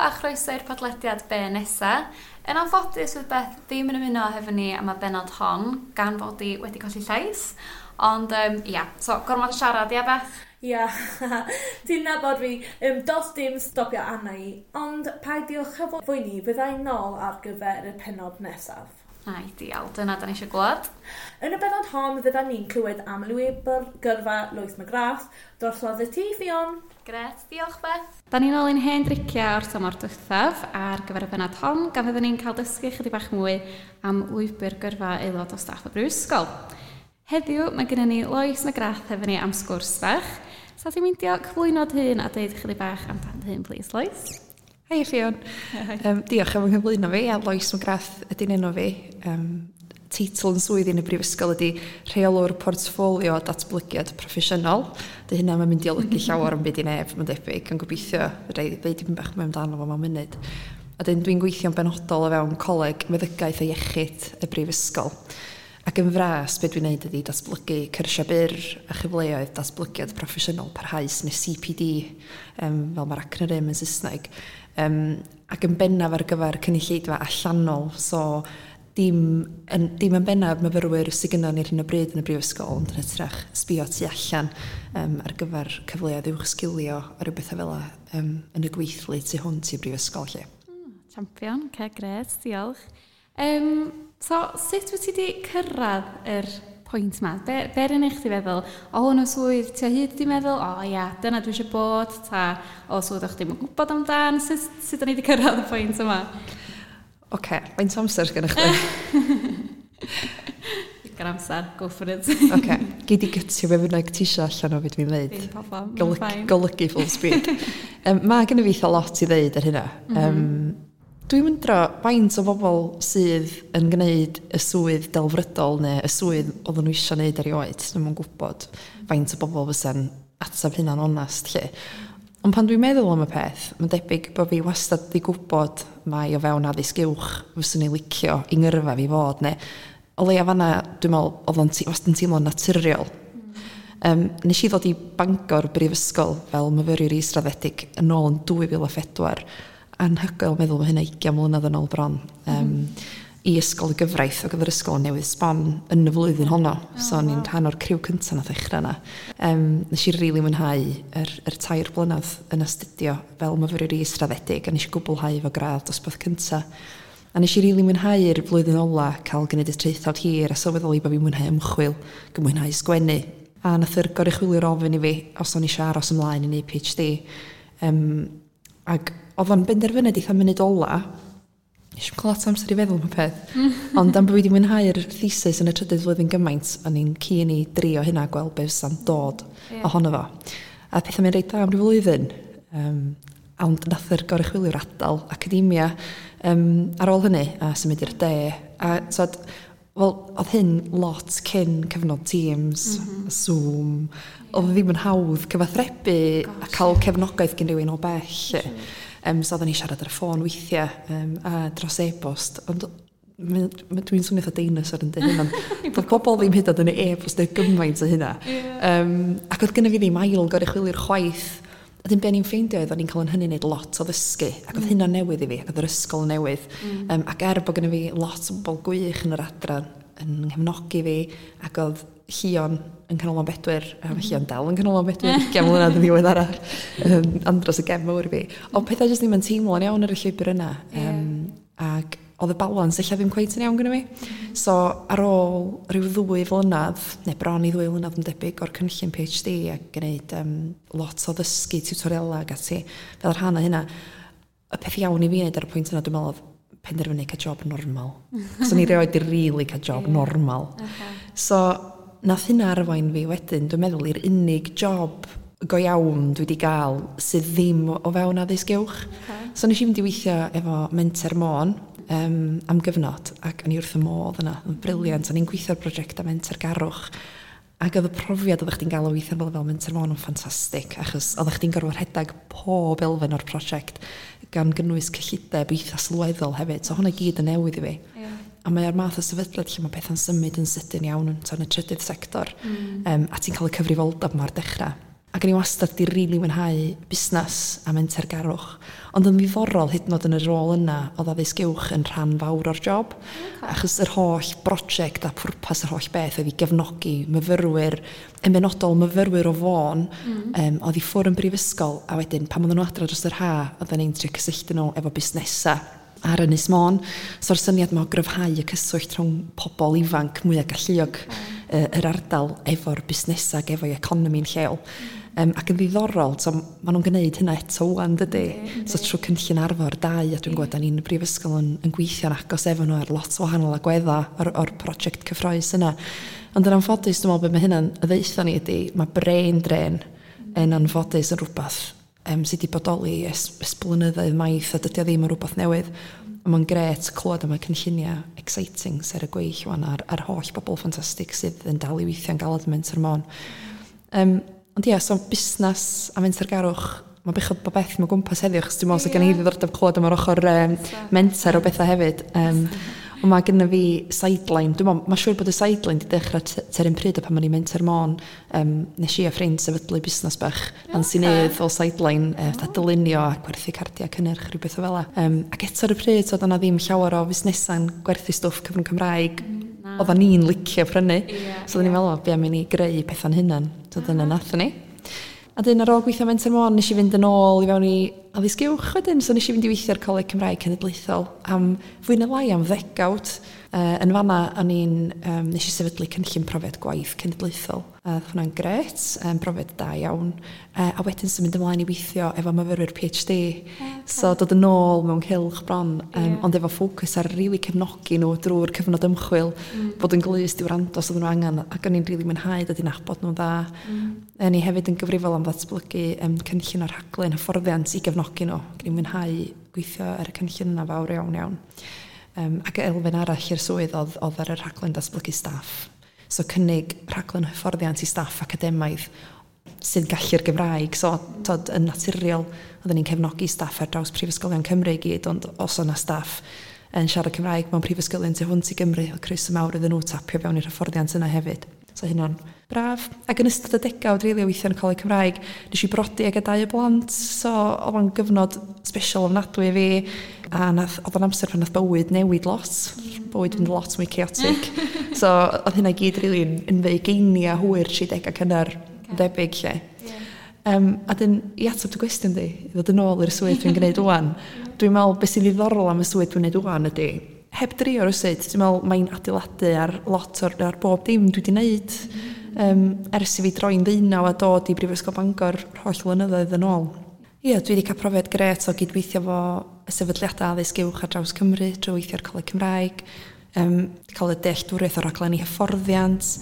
a chroeso i'r podlediad Be Nesa. Yn anffodus fydd Beth ddim yn ymuno hefo ni am y bennod hon, gan fod hi wedi colli llais. Ond ia, so gormod o siarad, ia Beth? Ia, ti'n nabod fi, does dim stopio arna i, ond peidiwch â phoeni, fydda i nôl ar gyfer y pennod nesaf. Ideal, dyna da ni eisiau glwad. Yn y bennod hon, fydda ni'n clywed am lwybr gyrfa Lois McGrath, drosodd i ti, Ffion. Grêt, diolch Beth. Da ni'n ôl i'n hen driciau o'r tymor diwethaf ar gyfer y bennod hon, gan fyddwn ni'n cael dysgu chydig bach mwy am lwybr gyrfa aelod o staff y Brifysgol. Heddiw mae gennym ni Lois McGrath hefo ni am sgwrs bach. Sa ti'n meindio cyflwyno dy hun a deud chydig bach amdan dy hun, please, Lois? Hei Ffion. Diolch am yng nghyflwyno fi. Ia, Lois McGrath ydy'n enw fi. Teitl yn swydd yn y brifysgol ydy Rheolwr Portffolio Datblygiad Proffesiynol. Dy hynna mae'n mynd i olygu llawer am byd i neb, mae'n debyg, yn gobeithio fedra i ddeud dipyn bach mwy amdano fo mewn munud. A dyn dwi'n gweithio'n benodol o fewn Coleg Meddygaeth a Iechyd y Brifysgol. Ac yn fras, be dwi'n neud ydy datblygu cyrsia byr a chyfleoedd datblygiad proffesiynol parhaus, neu CPD, fel mae'r acronym yn Saesneg. Ac yn bennaf ar gyfer cynulleidfa allanol, so dim yn bennaf myfyrwyr sydd gynnon ni ar hyn o bryd yn y brifysgol, ond yn hytrach sbio tu allan ar gyfer cyfleoedd uwchsgilio a rhyw bethau fel yn y gweithlu tu hwnt i'r brifysgol lle. Champion, ce, grêt, diolch. So, sut wyt ti wedi cyrraedd yr pwynt ma? Be rydyn i chdi feddwl? O hwn o swydd ti o hyd di meddwl, o ia, dyna dwi eisiau bod, ta o swydd o'ch ddim yn gwybod amdan? Sut da ni wedi cyrraedd y pwynt yma? Oce, okay, faint o amser sgennych chdi? Digon amser, go for it. Oce, okay. Gei di gytio be bynnag ti isio allan o beth dwi'n dweud. Dim problem, fine. Golygu full speed. Mae gen i fi eitha lot i ddeud ar hynna. Dwi'n wyndro faint o bobl sydd yn gwneud y swydd delfrydol neu y swydd oedden nhw eisiau gwneud erioed. Dwi'm yn gwybod faint o bobl fysa'n atab hynna'n onast lle. Ond pan dwi'n meddwl am y peth, mae'n debyg bod fi wastad di gwybod mai o fewn addysg uwch fyswn i licio i ngyrfa fi fod, neu o leia fanna, dwi'n meddwl, oedd o'n wastad yn teimlo'n naturiol. Nes i ddod i Bangor Brifysgol fel myfyriwr israddedig yn ôl yn 2004. Anhygoel meddwl mae hynna 20 mlynedd yn ôl bron. I ysgol y gyfraith, ac oedd yr ysgol yn newydd sbon yn y flwyddyn honno. So o'n i'n rhan o'r criw cynta nath ddechrau yna. Nes i rili mwynhau yr 3 blynedd yn astudio fel myfyriwr israddedig, a nes i gwblhau fo gradd dosbarth cynta. A nes i rili mwynhau'r flwyddyn ola cael gwneud y traethawd hir a sylweddoli bod fi'n mwynhau ymchwil, ac yn mwynhau sgwennu. A nath yr goruchwyliwr ofyn i fi os o'n i eisiau aros ymlaen i neud PhD. Ac oedd o'n benderfyniad eitha munud ola. Nes i'm cael lot o amser i feddwl am y peth. Ond am bod fi wedi mwynhau'r thesis yn y trydydd flwyddyn gymaint, o'n i'n keen i drio hynna, gweld be fysa'n dod ohono fo. A pethau'n mynd reit dda am ryw flwyddyn. Ond nath yr goruchwyliwr adael academia ar ôl hynny a symud i'r de. A so, wel, oedd hyn lot cyn cyfnod Teams, Zoom. Oedd ddim yn hawdd cyfathrebu a cael cefnogaeth gen rhywun o bell. So oedden ni siarad ar y ffôn weithiau a dros e-bost. Ond dwi'n swnio fatha dinosaur yn dweud hyn, ond doedd pobl ddim hyd yn oed yn e-bost neu gymaint o hynna. Ac oedd gynna fi ddim ail goruchwyliwr chwaith. A dim be o'n i'n ffeindio oedd o'n i'n cael yn hynny wneud lot o ddysgu ac oedd hynna'n newydd i fi ac oedd yr ysgol yn newydd. Ac er bod gynna fi lot o bobl gwych yn yr adran yn nghefnogi fi ac oedd Llion yn Canolfan Bedwyr, Llion dal yn Canolfan Bedwyr, 20 mlynedd yn ddiweddarach, andros o gefn mawr i fi. Ond pethau jyst ddim yn teimlo'n iawn ar y llwybr yna. Ac oedd y balans ella ddim cweit yn iawn gyda fi. So ar ôl rhyw 2 flynedd, neu bron i 2 flynedd yn debyg o'r cynllun PhD a gwneud lot o ddysgu tutoriala ac ati, fel rhan o hynna, y peth iawn i fi wneud ar y pwynt yna, dwi'n meddwl, oedd penderfynu cael job normal. So ni rioed di really cael job normal. So nath hynna arwain fi wedyn, dwi'n meddwl, i'r unig job go iawn dwi wedi gael sydd ddim o fewn addysg uwch. So nes i fynd i weithio efo Menter Môn am gyfnod, ac o'n i wrth y modd yna, yn brilliant. O'n i'n gweithio ar brosiectau mentergarwch, ac oedd y profiad oeddech chdi'n gael o weithio fel Menter Môn yn ffantastig, achos oeddech chdi'n gorfod rhedeg pob elfen o'r prosiect, gan gynnwys cyllideb eitha sylweddol hefyd. So hwnna i gyd yn newydd i fi. A mae o'r math o sefydliad lle mae pethau'n symud yn sydyn iawn yn y trydydd sector. A ti'n cael y cyfrifoldeb ma'r dechrau. Ac o'n i wastad 'di rili mwynhau busnas a mentergarwch, ond yn ddiddorol hyd yn oed yn y rôl yna o'dd addysg uwch yn rhan fawr o'r job achos yr holl broject a pwrpas yr holl beth oedd i gefnogi myfyrwyr, yn benodol myfyrwyr o Fôn oedd i ffwr yn brifysgol, a wedyn pan odda nhw adra dros yr ha odda ni'n trio cysylltu nhw efo busnesa ar Ynys Môn. So'r syniad 'ma o gryfhau y cyswllt rhwng pobol ifanc mwya galluog yr ardal efo'r busnesa ag efo'i economi'n lleol. Ac yn ddiddorol, so ma' nhw'n gneud hynna eto ŵan dydi? So trwy cynllun Arfor 2, a dwi'n gwybod da ni'n brifysgol yn gweithio'n agos efo nhw ar lot o wahanol agwedda o'r prosiect cyffrous yna. Ond yn anffodus, dwi'n meddwl be mae hynna'n ddeutha ni ydi, mae brain drain yn anffodus yn rhywbeth sydd wedi bodoli ers blynyddoedd maith, a dydy o ddim yn rhywbeth newydd. Ond mae'n grêt clywed am y cynllunia exciting sydd ar y gweill wan a'r holl bobl ffantastig sydd yn dal i weithio'n galed yn Menter Môn. Ond ia, so busnes a mentergarwch, mae'n bechod bod beth mewn gwmpas heddiw, achos dwi'n meddwl 'sa gen i ddiddordeb clywed am yr ochr menter o bethau hefyd. Ond mae genna fi sideline, dwi'n meddwl, mae'n siŵr bod y sideline 'di dechrau tua'r un pryd o pan o'n i'n Menter Môn. Nes i a ffrind sefydlu busnes bach Nansi Nedd fel sideline, fatha dylunio a gwerthu cardiau cynnyrch, rhywbeth o fela. Ac eto ar y pryd, so oedd yna ddim llawer o fusnesau'n gwerthu stwff cyfrwng Cymraeg oedda ni'n licio prynu. So oedden ni'n meddwl, be am i ni greu pethau'n hunan. So dyna nathon ni. A dyn ar ôl gweithio Menter Môn, nes i fynd yn ôl i fewn i addysg uwch wedyn. So nes i fynd i weithio ar Coleg Cymraeg Cenedlaethol am fwy na lai am ddegawd. Yn fanna o'n i'n nes i sefydlu cynllun profiad gwaith cenedlaethol. A oedd hwnna'n grêt, brofiad da iawn. A wedyn symud ymlaen i weithio efo myfyrwyr PhD. So dod yn ôl mewn cylch bron, ond efo ffocws ar rili cefnogi nhw drwy'r cyfnod ymchwil, bod yn glust i wrando os oedden nhw angen, ac o'n i'n rili mwynhau dod i nabod nhw'n dda. O'n i hefyd yn gyfrifol am ddatblygu cynllun o'r rhaglen hyfforddiant i gefnogi nhw. Ac o'n i'n mwynhau gweithio ar y cynllun yna fawr iawn iawn. Ac elfen arall i'r swydd oedd ar y rhaglen datblygu staff. So cynnig rhaglen hyfforddiant i staff academaidd sy'n gallu'r Gymraeg. So tod, yn naturiol, oedden ni'n cefnogi staff ar draws prifysgolion Cymru i gyd, ond os o'na staff yn siarad Cymraeg mewn prifysgolion tu hwnt i Gymru, oedd croeso mawr iddyn nhw tapio fewn i'r hyfforddiant yna hefyd. So hynna'n braf. Ac yn ystod y degawd rili o weithio yn y Coleg Cymraeg, nes i brodi ag dau o blant, so oedd o'n gyfnod special ofnadwy i fi, a oedd o'n amser pan nath bywyd newid lot, bywyd fynd lot mwy chaotic. So oedd hynna i gyd rili yn fy ugeinia hwyr 30 cynnar, debyg lle. A dyn, i ateb dy gwestiwn di, i ddod yn ôl i'r swydd dwi'n gwneud ŵan, dwi'n meddwl beth sy'n ddiddorol am y swydd dwi'n gwneud ŵan ydy, heb drio rywsut, dwi'n meddwl mae'n adeiladu ar lot ar bob dim dwi wedi wneud ers i fi droi'n 19 a dod i Brifysgol Bangor holl flynyddoedd yn ôl. Ie, dwi wedi cael profiad grêt o gydweithio fo y sefydliadau addysg uwch ar draws Cymru drwy weithio ar Coleg Cymraeg, cael y dealltwriaeth o raglenni hyfforddiant,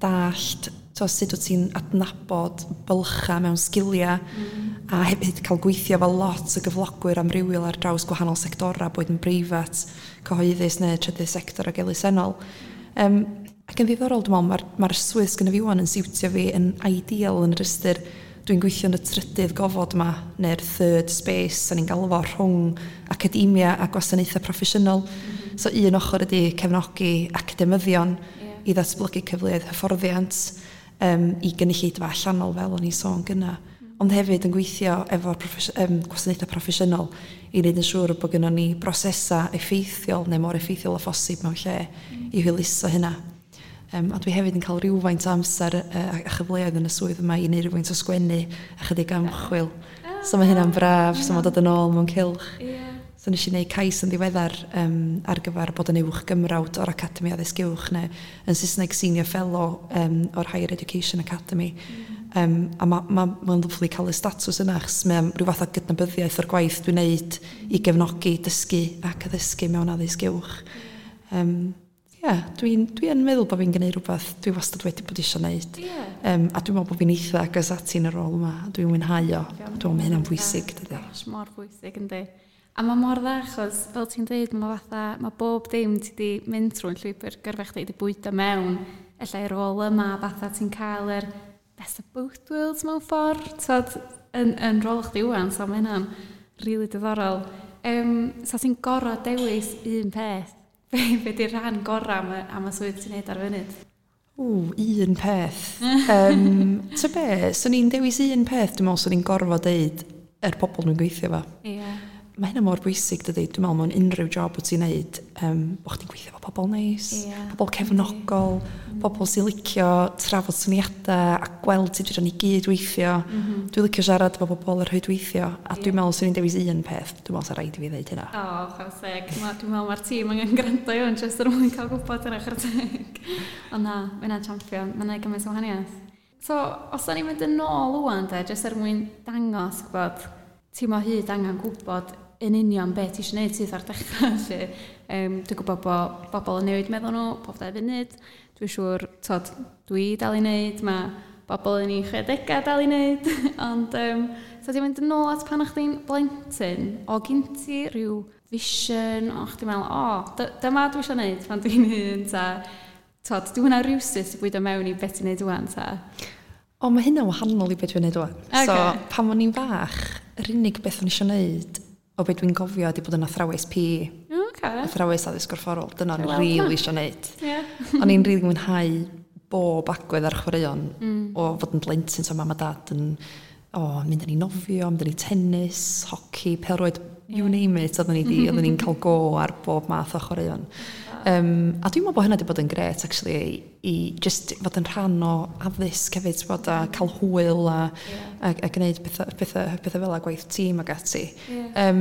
dallt so sut wyt ti'n adnabod bylcha mewn sgilia, a hefyd cael gweithio efo lot o gyflogwyr amrywiol ar draws gwahanol sectora, boed yn breifat, cyhoeddus neu trydydd sector ac elusennol. Ac yn ddiddorol, dwi'n meddwl, mae'r swydd sgynna fi ŵan yn siwtio fi yn ideal yn yr ystyr dwi'n gweithio yn y trydydd gofod ma, neu'r third space, sa'n ni'n galw fo, rhwng academia a gwasanaethau proffesiynol. So un ochr ydy cefnogi academyddion i ddatblygu cyfleoedd hyfforddiant i gynulleidfa allanol fel o'n i'n sôn gynna, ond hefyd yn gweithio efo'r gwasanaethau proffesiynol i wneud yn siŵr bod gynnon ni brosesa effeithiol neu mor effeithiol â phosib mewn lle i hwyluso hynna. A dwi hefyd yn cael rhywfaint o amser a chyfleoedd yn y swydd yma i wneud rhywfaint o sgwennu a chydig o ymchwil. So mae hynna'n braf, so mae'n dod yn ôl mewn cylch. So nes i wneud cais yn ddiweddar ar gyfer bod yn uwch gymrawd o'r Academi Addysg Uwch, neu yn Saesneg Senior Fellow o'r Higher Education Academy. A mae'n lyfli cael y statws yna, achos mae'n rhyw fath o gydnabyddiaeth o'r gwaith dwi'n neud i gefnogi dysgu ac addysgu mewn addysg uwch. Dwi yn meddwl bod fi'n gwneud rhywbeth dwi wastad wedi bod eisiau gwneud. A dwi'n meddwl bod fi'n eitha agos ati yn y rôl yma. Dwi'n mwynhau o. Dwi'n meddwl mae hynna'n bwysig, dydi? Gosh, mor bwysig, yndi. A mae mor dda, achos fel ti'n dweud, mae bob dim ti di mynd trwy'n llwybr gyrfa chdi di bwydo mewn ella i'r rôl yma, fatha ti'n cael yr best of both worlds mewn ffordd, tod, yn rôl chdi ŵan, so mae hynna'n rili diddorol. So ti'n gorfod dewis un peth, be di'r rhan gorau am y swydd ti'n neud ar y funud? Ww, un peth. Ta be, swn i'n dewis un peth, dwi'n meddwl swn i'n gorfod deud yr pobl dwi'n gweithio efo. Ie. Mae hynna mor bwysig dydi, dwi'n meddwl mewn unrhyw job wyt ti'n neud, bo' chdi'n gweithio efo pobl neis, pobl cefnogol, pobl sy'n licio trafod syniadau a gweld sut fedrwn ni gyd weithio. Dwi'n licio siarad efo bobl ar rhwydweithio, a dwi'n meddwl swn i'n dewis un peth, dwi'n meddwl sa raid i fi ddeud hynna. O, chwarae teg. Dwi'n meddwl mae'r tîm angen gwrando i hwn jyst er mwyn cael gwybod yna, chwarae teg. Ond na, mae hynna'n champion, mae'n neud gymaint o wahaniaeth. So, os da ni'n mynd yn ôl ŵan de, jyst er mwyn dangos gwybod, ti mo hyd angen gwybod yn union be ti eisiau gwneud sydd ar dechrau felly. Dwi'n gwybod bod bobl yn newid meddwl nhw pob 2 funud. Dwi'n siŵr, tod, dwi dal i wneud, mae bobl yn ei 60au dal i wneud. Ond, so ti'n mynd yn ôl at pan o'ch chdi'n blentyn, o gyn ti rhyw vision, o chdi'n meddwl, o, dyma dwi eisiau gwneud pan dwi'n hŷn, ta, tod, dwi hwnna rywsut i bwydo mewn i beth ti'n neud ŵan, ta? O, mae hynna'n wahanol i beth dwi'n neud ŵan. Okay. So, pan o'n i'n fach, yr unig beth o'n i eisiau neud o beth dwi'n gofio ydi bod yn athrawes PE. Okay. Athrawes addysg gorfforol. Dyna o'n i'n rili eisiau neud. Yeah. O'n i'n rili mwynhau bob agwedd ar chwaraeon o fod yn blentyn, so mam a dad yn mynd â ni nofio, mynd â ni tennis, hoci, pêl-rwyd, you name it, oedden ni'n cael go ar bob math o chwaraeon. A dwi'n meddwl bod hynna wedi bod yn grêt actually i just fod yn rhan o addysg hefyd, bod a cael hwyl a gwneud pethau fel a gwaith tîm ac ati. A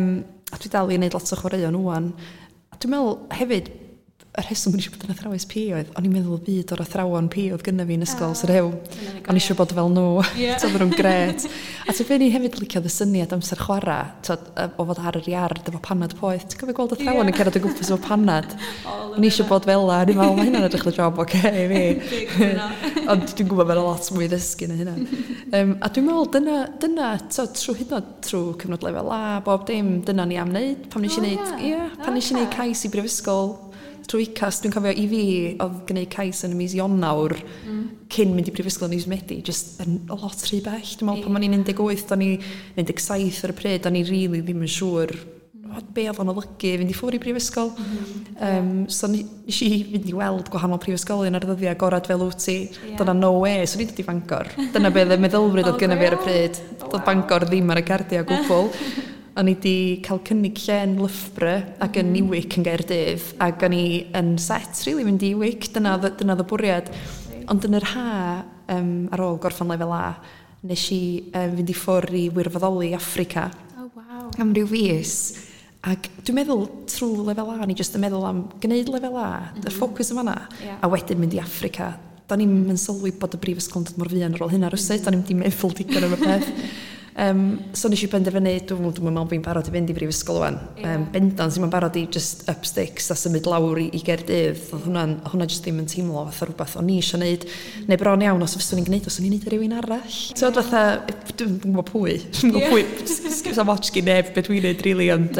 dwi dal i wneud lot o chwaraeon ŵan. A dwi'n meddwl hefyd, y rheswm o'n i eisiau bod yn athrawes PE oedd, o'n i'n meddwl y byd o'r athrawon PE oedd gynna fi yn ysgol Sir Hew. O'n i eisiau bod fel nhw, oedden nhw'n grêt. A ti'n fe ni hefyd liciodd y syniad amser chwarae, o fod ar yr iard efo panad poeth. Ti'n cofio gweld athrawon yn cerdded o gwmpas efo panad? O'n i eisiau bod fel 'na, o'n i'n meddwl, mae hynna'n edrych fel job oce i fi. Ond dwi'n gwybod mae'n lot mwy ddysgu na hynna. A dwi'n meddwl, dyna trwy hyd yn oed trwy cyfnod lefel A, bob dim, dyna ni am wneud. Pan nes i wneud cais i brifysgol trwy UCAS, dwi'n cofio i fi oedd gwneud cais yn y mis Ionawr cyn mynd i brifysgol yn mis Medi, just yn lot rhy bell. Dwi'n meddwl pan o'n i'n 18, o'n i 17 ar y pryd, o'n i rili ddim yn siŵr be oedd o'n olygu fynd i ffwrdd i brifysgol. So nes i fynd i weld gwahanol prifysgolion ar ddyddiau agorad fel wyt ti. Dyna no way, so ni'n dod i Bangor. Dyna be oedd y meddylfryd oedd gynna fi ar y pryd. Doedd Bangor ddim ar y cardiau o gwbl. O'n i di cael cynnig lle yn Loughborough ac yn UWIC yn Gaerdydd, ac o'n i yn set rili mynd i UWIC, dyna oedd y bwriad. Ond yn yr ha, ar ôl gorffen lefel A, nes i fynd i ffwrdd i wirfoddoli Affrica. Oh, wow. Am ryw fis. Ac dwi'n meddwl trwy lefel A, ni jyst yn meddwl am gwneud lefel A, y ffocws yn fanna, a wedyn mynd i Affrica. Da ni'm yn sylwi bod y brifysgol yn dod mor fuan ar ôl hynna rywsut, da ni'm di meddwl digon am y peth. So nes i benderfynu, dwi'n meddwl bod fi'n barod i fynd i brifysgol ŵan. Bendant, i'n barod i just up sticks a symud lawr i Gaerdydd. Oedd hwnna just ddim yn teimlo fatha rhywbeth o'n i eisiau neud. Neu bron iawn, os fyswn i'n gwneud, os o'n i'n neud i rywun arall. So fatha, dwi'n gwybod pwy. Dwi'n gwybod pwy, sa'm ots gin neb be dwi'n neud, really, ond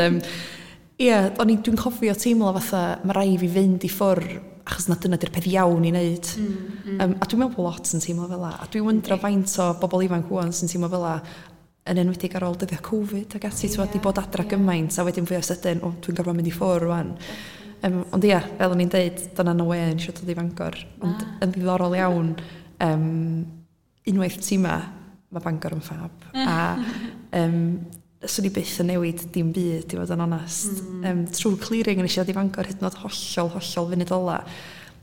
dwi'n cofio teimlo fatha, mae rai fi fynd i ffwrdd achos na dyna di'r peth iawn i wneud. A dwi'n meddwl bod lot yn teimlo fel 'a. A dwi'n wyndro faint o bobl ifanc ŵan sy'n teimlo fel 'a, yn enwedig ar ôl dyddiau Covid ac ati, ti'n di bod adra gymaint, a wedyn fwy o sydyn, o, dwi'n gorfod mynd i ffwrdd rwan. Ond ia, fel o'n i'n deud, dyna no way yn eisiau dod i Fangor. Ond yn ddiddorol iawn, unwaith ti 'ma, mae Bangor yn ffab. A swn i byth yn newid dim byd, i fod yn onast. Trwy clearing yn eisiau dod i Fangor hyd yn oed hollol funud ola.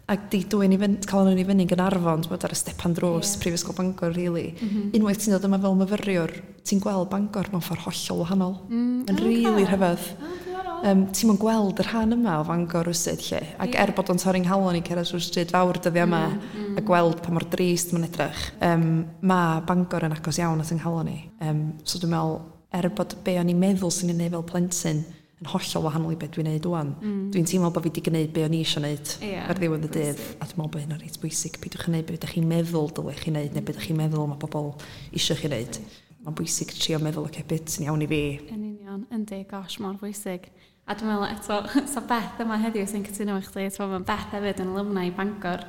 Ac di dwyn i fynd, cael nhw'n i fyny yn Gaernarfon, ti'n bod ar y stepan drws Prifysgol Bangor, really. Unwaith ti'n dod yma fel myfyriwr, ti'n gweld Bangor mewn ffordd hollol wahanol. Mae'n rili rhyfedd. Ti'n mwyn gweld y rhan yma o Fangor rywsut lle. Ac er bod o'n torri'n nghalon i cerdded trwy'r stryd fawr dyddia yma, a gweld pa mor drist mae'n edrych, mae Bangor yn agos iawn at yng nghalon i. So dwi'n meddwl, er bod be o'n i'n meddwl sy'n ei wneud fel plentyn, yn hollol wahanol i beth dwi'n neud ŵan. Dwi'n teimlo bod fi wedi gwneud be o'n i eisiau neud ar ddiwedd y dydd, a dwi'n meddwl bod hynna'n reit bwysig. Peidiwch yn neud be ydych chi'n meddwl dylech chi neud, neu be ydych chi'n meddwl mae bobl eisiau chi neud. Mae'n bwysig trio meddwl, oce, beth sy'n iawn i fi. Yn union, yndi, gosh, mor bwysig. A dwi'n meddwl eto, so Beth yma heddiw sy'n cytuno efo chdi, ti'n meddwl, Beth hefyd yn alumni i Bangor.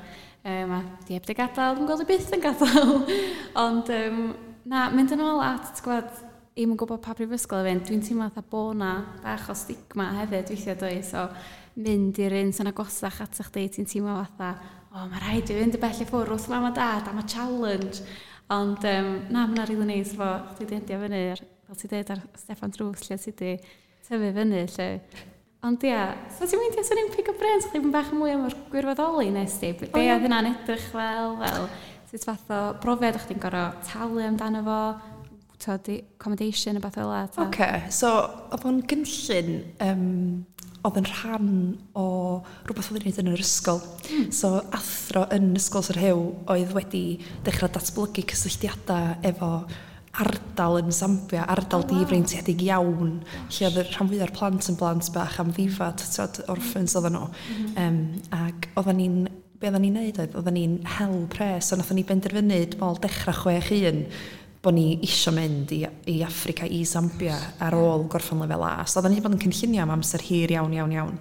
A di heb di gadael, dwi'n gweld i byth yn gadael. Ond, na, mynd yn ôl at, ti'n gwybod, i'm yn gwybod pa brifysgol i fynd, dwi'n teimlo fatha bo' na bach o stigma hefyd weithiau dwi, so mynd i'r un sy'n agosach atoch chdi, ti'n teimlo fatha, o, mae rhaid i fynd y bell i ffwrdd wrth mam a dad am y challenge. Ond na, mae'n rili neis fo chdi di endio fyny ar, fel ti dweud, ar Steffan Drws lle ti di tyfu fyny lle. Ond ia, so ti'n meindio swn i'n pick up brains chdi bach mwy am yr gwirfoddoli nes di? Be oedd hynna'n edrych fel sut fath o brofiad o'ch chdi'n gorfod talu amdano fo, t'od, accommodation a beth fel 'a? Oce, so oedd o'n gynllun oedd yn rhan o rhywbeth oedd yn neud yn yr ysgol. So athro yn Ysgol Sir Rhiw oedd wedi dechrau datblygu cysylltiadau efo ardal yn Zambia, ardal difreintiedig iawn, lle oedd y rhan fwyaf o'r plant yn blant bach amddifad, t'od, orphans oedden nhw. Ac oedden ni'n, be oedden ni'n neud oedd, oedden ni'n hel pres, so nathon ni benderfynu, dwi'n meddwl, dechrau 6-1, bod ni isio mynd i Affrica, i Zambia ar ôl gorffen lefel A. So oedden ni wedi bod yn cynllunio am amser hir iawn, iawn, iawn.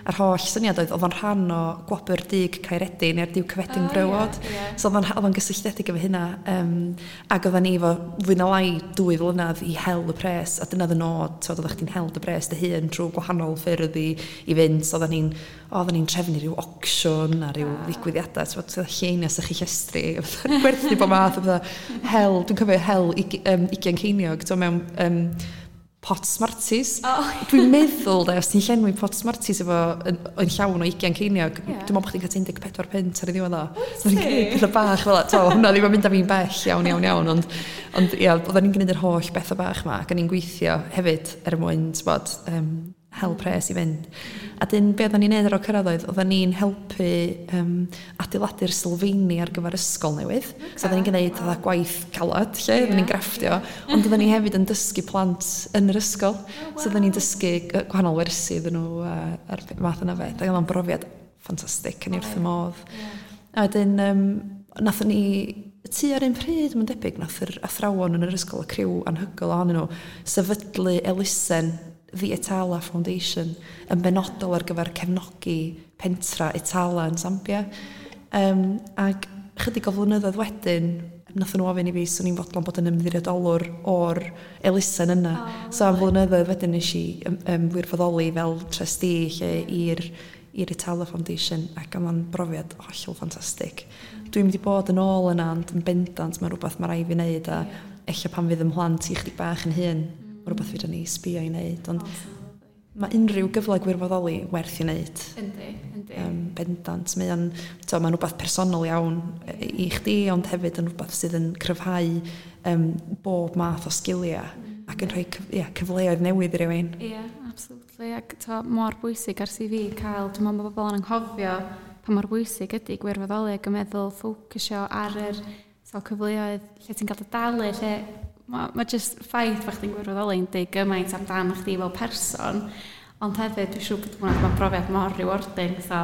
A'r holl syniad oedd o'n rhan o Gwobr Dug Caeredin neu'r Duke of Edinburgh Award. So oedd o'n gysylltiedig efo hynna. Ac oedden ni efo fwy na lai 2 flynedd i hel y pres, a dyna oedd y nod, t'od, oeddech chdi'n hel dy bres dy hun trwy gwahanol ffyrdd i fynd. So oedden ni'n trefnu rhyw auction a rhyw ddigwyddiadau, t'od, lleiniau sychu llestri, gwerthu bob math o bethau. Hel, dwi'n cofio hel 20 ceiniog, t'o, mewn pot Smarties. Dwi'n meddwl, de, os ti'n llenwi pot Smarties efo yn llawn o 20 ceiniog, dwi'n meddwl bod chdi'n cael 14 punt ar ei ddiwedd o. So ni'n gwneud pethau bach fel 'a, hwnna ddim yn mynd â fi'n bell iawn, iawn, iawn, ond ia, oedden ni'n gwneud yr holl bethau bach ma, ac o'n i'n gweithio hefyd er mwyn, t'bod, hel pres i fynd. A dyn be oedden ni'n neud ar ôl cyrraedd oedd, oedden ni'n helpu adeiladu'r sylfaeni ar gyfer ysgol newydd. So oedden ni'n gwneud fatha gwaith calad lle, oedden ni'n grafftio, ond oedden ni hefyd yn dysgu plant yn yr ysgol. So oedden ni'n dysgu gwahanol wersi iddyn nhw a'r math yna beth. Ac oedd o'n brofiad ffantastig, yn i wrth y modd. A wedyn nathon ni tua'r un pryd, mae'n debyg, nath yr athrawon yn yr ysgol, y criw anhygoel ohonyn nhw, sefydlu elusen The Itala Foundation yn benodol ar gyfer cefnogi pentra Itala yn Zambia. Ac chydig o flynyddoedd wedyn, nathon nhw ofyn i fi, swn i'n fodlon bod yn ymddiriedolwr o'r elusen yna. So am flynyddoedd wedyn nes i wirfoddoli fel trustee lle i'r Itala Foundation, ac oedd o'n brofiad hollol ffantastig. Dwi'n mynd i bod yn ôl yna, ond yn bendant mae'n rhywbeth mae rhaid fi wneud, a ella pan fydd 'y mhlant i chydig bach yn hŷn, mae rhywbeth fedra ni sbio i wneud, ond mae unrhyw gyfle gwirfoddoli werth i wneud. Yndi, yndi. Bendant. Mae'n rhywbeth personol iawn i chdi, ond hefyd yn rhywbeth sydd yn cryfhau bob math o sgiliau ac yn rhoi cyfleoedd newydd i rywun. Ie, absolutely. Ac mor bwysig ar CV cael, dwi'n meddwl mae bobl yn anghofio pa mor bwysig ydy gwirfoddoli ac yn meddwl ffocysio ar yr cyfleoedd lle ti'n cael dy dalu, lle mae just ffaith bod chdi'n gwirfoddoli'n deud gymaint amdan chdi fel person, ond hefyd dwi'n siŵr bod hwnna'n brofiad mor rewarding. So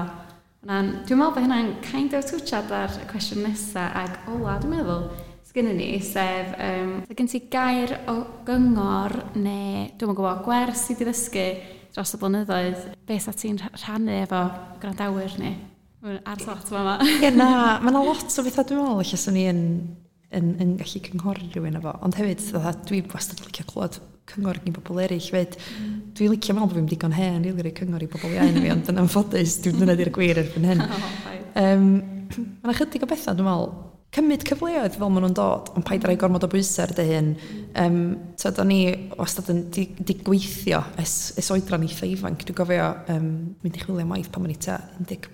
dwi'n meddwl bod hynna'n kind of twtsiad ar y cwestiwn nesa ac ola, dwi'n meddwl, sgynnon ni, sef gen ti gair o gyngor neu dwi'm yn gwybod gwers ti 'di ddysgu dros y blynyddoedd, be sa ti'n rhannu efo gwrandawyr ni? Ar lot fama. Ie, na, mae 'na lot o bethau dwi'n meddwl ella swn i yn gallu cynghori rhywun efo, ond hefyd fatha dwi wastad yn licio clywed cyngor gen bobl eraill fyd. Dwi'n licio meddwl bod fi'n digon hen rili rhoi cyngor i bobl iau na fi, ond yn anffodus dwi'n dyna di'r gwir erbyn hyn. Mae 'na chydig o bethau dwi'n meddwl, cymryd cyfleoedd fel maen nhw'n dod, ond paid â rhoi gormod o bwysau ar dy hun. T'od, o'n i wastad yn di gweithio ers oedran eitha ifanc. Dwi'n gofio mynd i chwilio am waith pan o'n i tua 15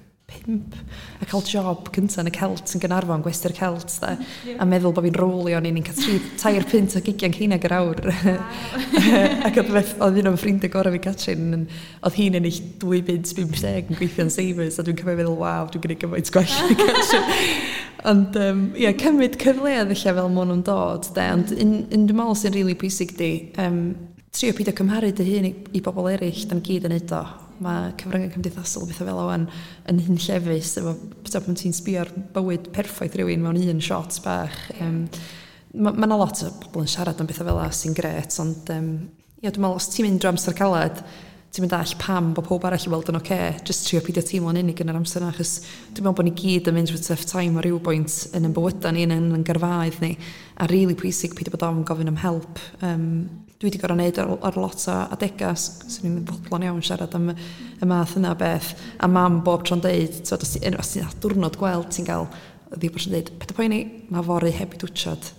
a cael job cynta yn y Celt yn Gaernarfon, gwesty'r Celt de, a meddwl bod fi'n rowlio, o'n i'n cael 3 punt o 20 ceiniog yr awr. Ac oedd un o'n ffrindiau gorau fi, Catrin, oedd hi'n ennill 2 bunt 50 yn gweithio yn Savers, a dwi'n cofio feddwl, waw, dwi'n gwneud gymaint gwell na Catrin. Ond ia, cymryd cyfleoedd ella fel maen nhw'n dod de, ond un dwi'n meddwl sy'n rili pwysig di, trio peidio cymharu dy hun i bobl eraill, da'n gyd yn neud o. Mae cyfryngau cymdeithasol bethau fel o'n yn hunllefus efo pan ti'n sbio ar bywyd perffaith rhywun mewn un shot bach. Mae 'na lot o bobl yn siarad am bethau fel 'a sy'n grêt, ond ia, dwi'n meddwl os ti'n mynd drwy amser caled, Ti'n mynd all pam bo powb arall i weld yn ocê, jyst trio peidio teimlo'n unig yn yr amser 'na, achos dwi'n me'l bo' ni gyd yn mynd trwy tough time ar ryw bwynt yn 'yn bywyda ni yn 'yn gyrfaoedd ni, a rili pwysig peidio bod ofn gofyn am help. Dwi 'di goro neud ar lot o adega 'swn i'm yn fodlon iawn siarad am y math yna o beth, a mam bob tro'n deud t'od os ti os ti'n diwrnod gwael ti'n ga'l o'dd i bob tro'n deud paid a poeni ma' fory heb i dwtshad.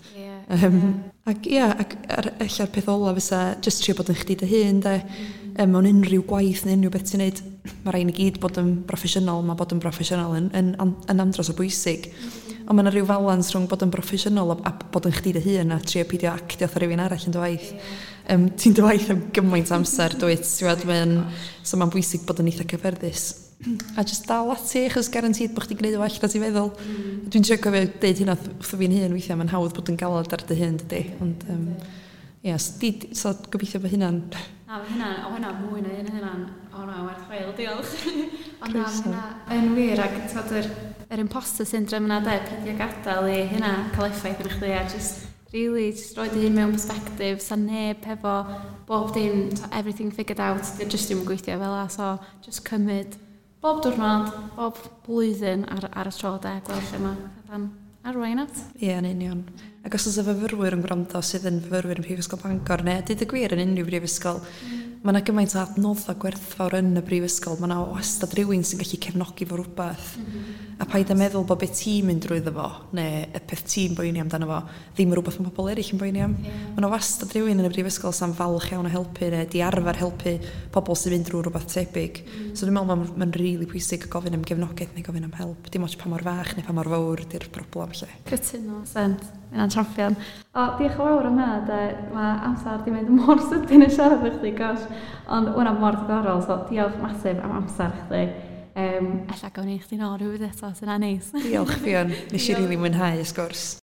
Ac ia ac ella'r peth ola fysa jyst trio bod yn chdi dy hun de. Mewn unrhyw gwaith neu unrhyw beth ti'n neud, ma' rai' ni gyd bod yn broffesiynol, ma' bod yn broffesiynol yn andros o bwysig, ond ma' 'na ryw falans rhwng bod yn broffesiynol a bod yn chdi dy hun a trio peidio actio atha rywun arall yn dy waith. Ti'n dy waith am gymaint o amser dwyt ti wbod mae'n so ma'n bwysig bod yn eitha cyffyrddus a jyst dal ati achos guaranteed bo' chdi'n gneud yn well na ti'n feddwl. Dwi'n trio cofio deud hynna wrtho fi'n hun withia ma'n hawdd bod yn galad ar dy hun dydi, ond yym ia so di... so gobeithio bo hynna'n Na ma' hynna o hynna mwy na un o hynna'n o na werth chweil diolch. Ond na ma' Croeso. hynna yn wir ag t'od yr imposter syndrome yna de peidio gadal i hynna ca'l effaith arna chdi a jyst rili jyst roid dy hun mewn persbectif 'sa neb hefo bob dim t'o everything figured out 'dio jyst ddim yn gweithio fela, so jyst cymyd bob diwrnod bob blwyddyn ar y tro de gweld lle ma' petha'n arwain at. Ia yn union, ac os o's 'na fyfyrwyr yn gwrando sydd yn fyfyrwyr yn Prifysgol Bangor ne' deud y gwir yn unrhyw brifysgol, ma' 'na gymaint o adnodda gwerthfawr yn y brifysgol, ma' 'na wastad rywun sy'n gallu cefnogi fo rwbath. A paid a meddwl bo' be ti'n mynd drwyddo fo ne' y peth ti'n boeni amdano fo ddim yn rwbath ma' pobol erill yn boeni am. Ma' 'na wastad rywun yn y brifysgol sa'n falch iawn o helpu ne' 'di arfar helpu pobol sy'n mynd drw rwbath tebyg. So dwi'n me'l ma'n rili pwysig gofyn am gefnogaeth neu gofyn am help dim ots pa mor fach neu pa mor fowr 'di'r broblem 'llu. Cytuno sent ma' hynna'n champion. O diolch yn fawr am hynna de, ma' amser 'di mynd mor sydyn yn siarad efo chdi gosh, ond ma' hwnna mor diddorol, so diolch masif am amser chdi. Ella gawn ni chdi nôl rhywbryd eto 'sa hynna'n neis. Diolch Ffion, neshi rili mwynhau y sgwrs.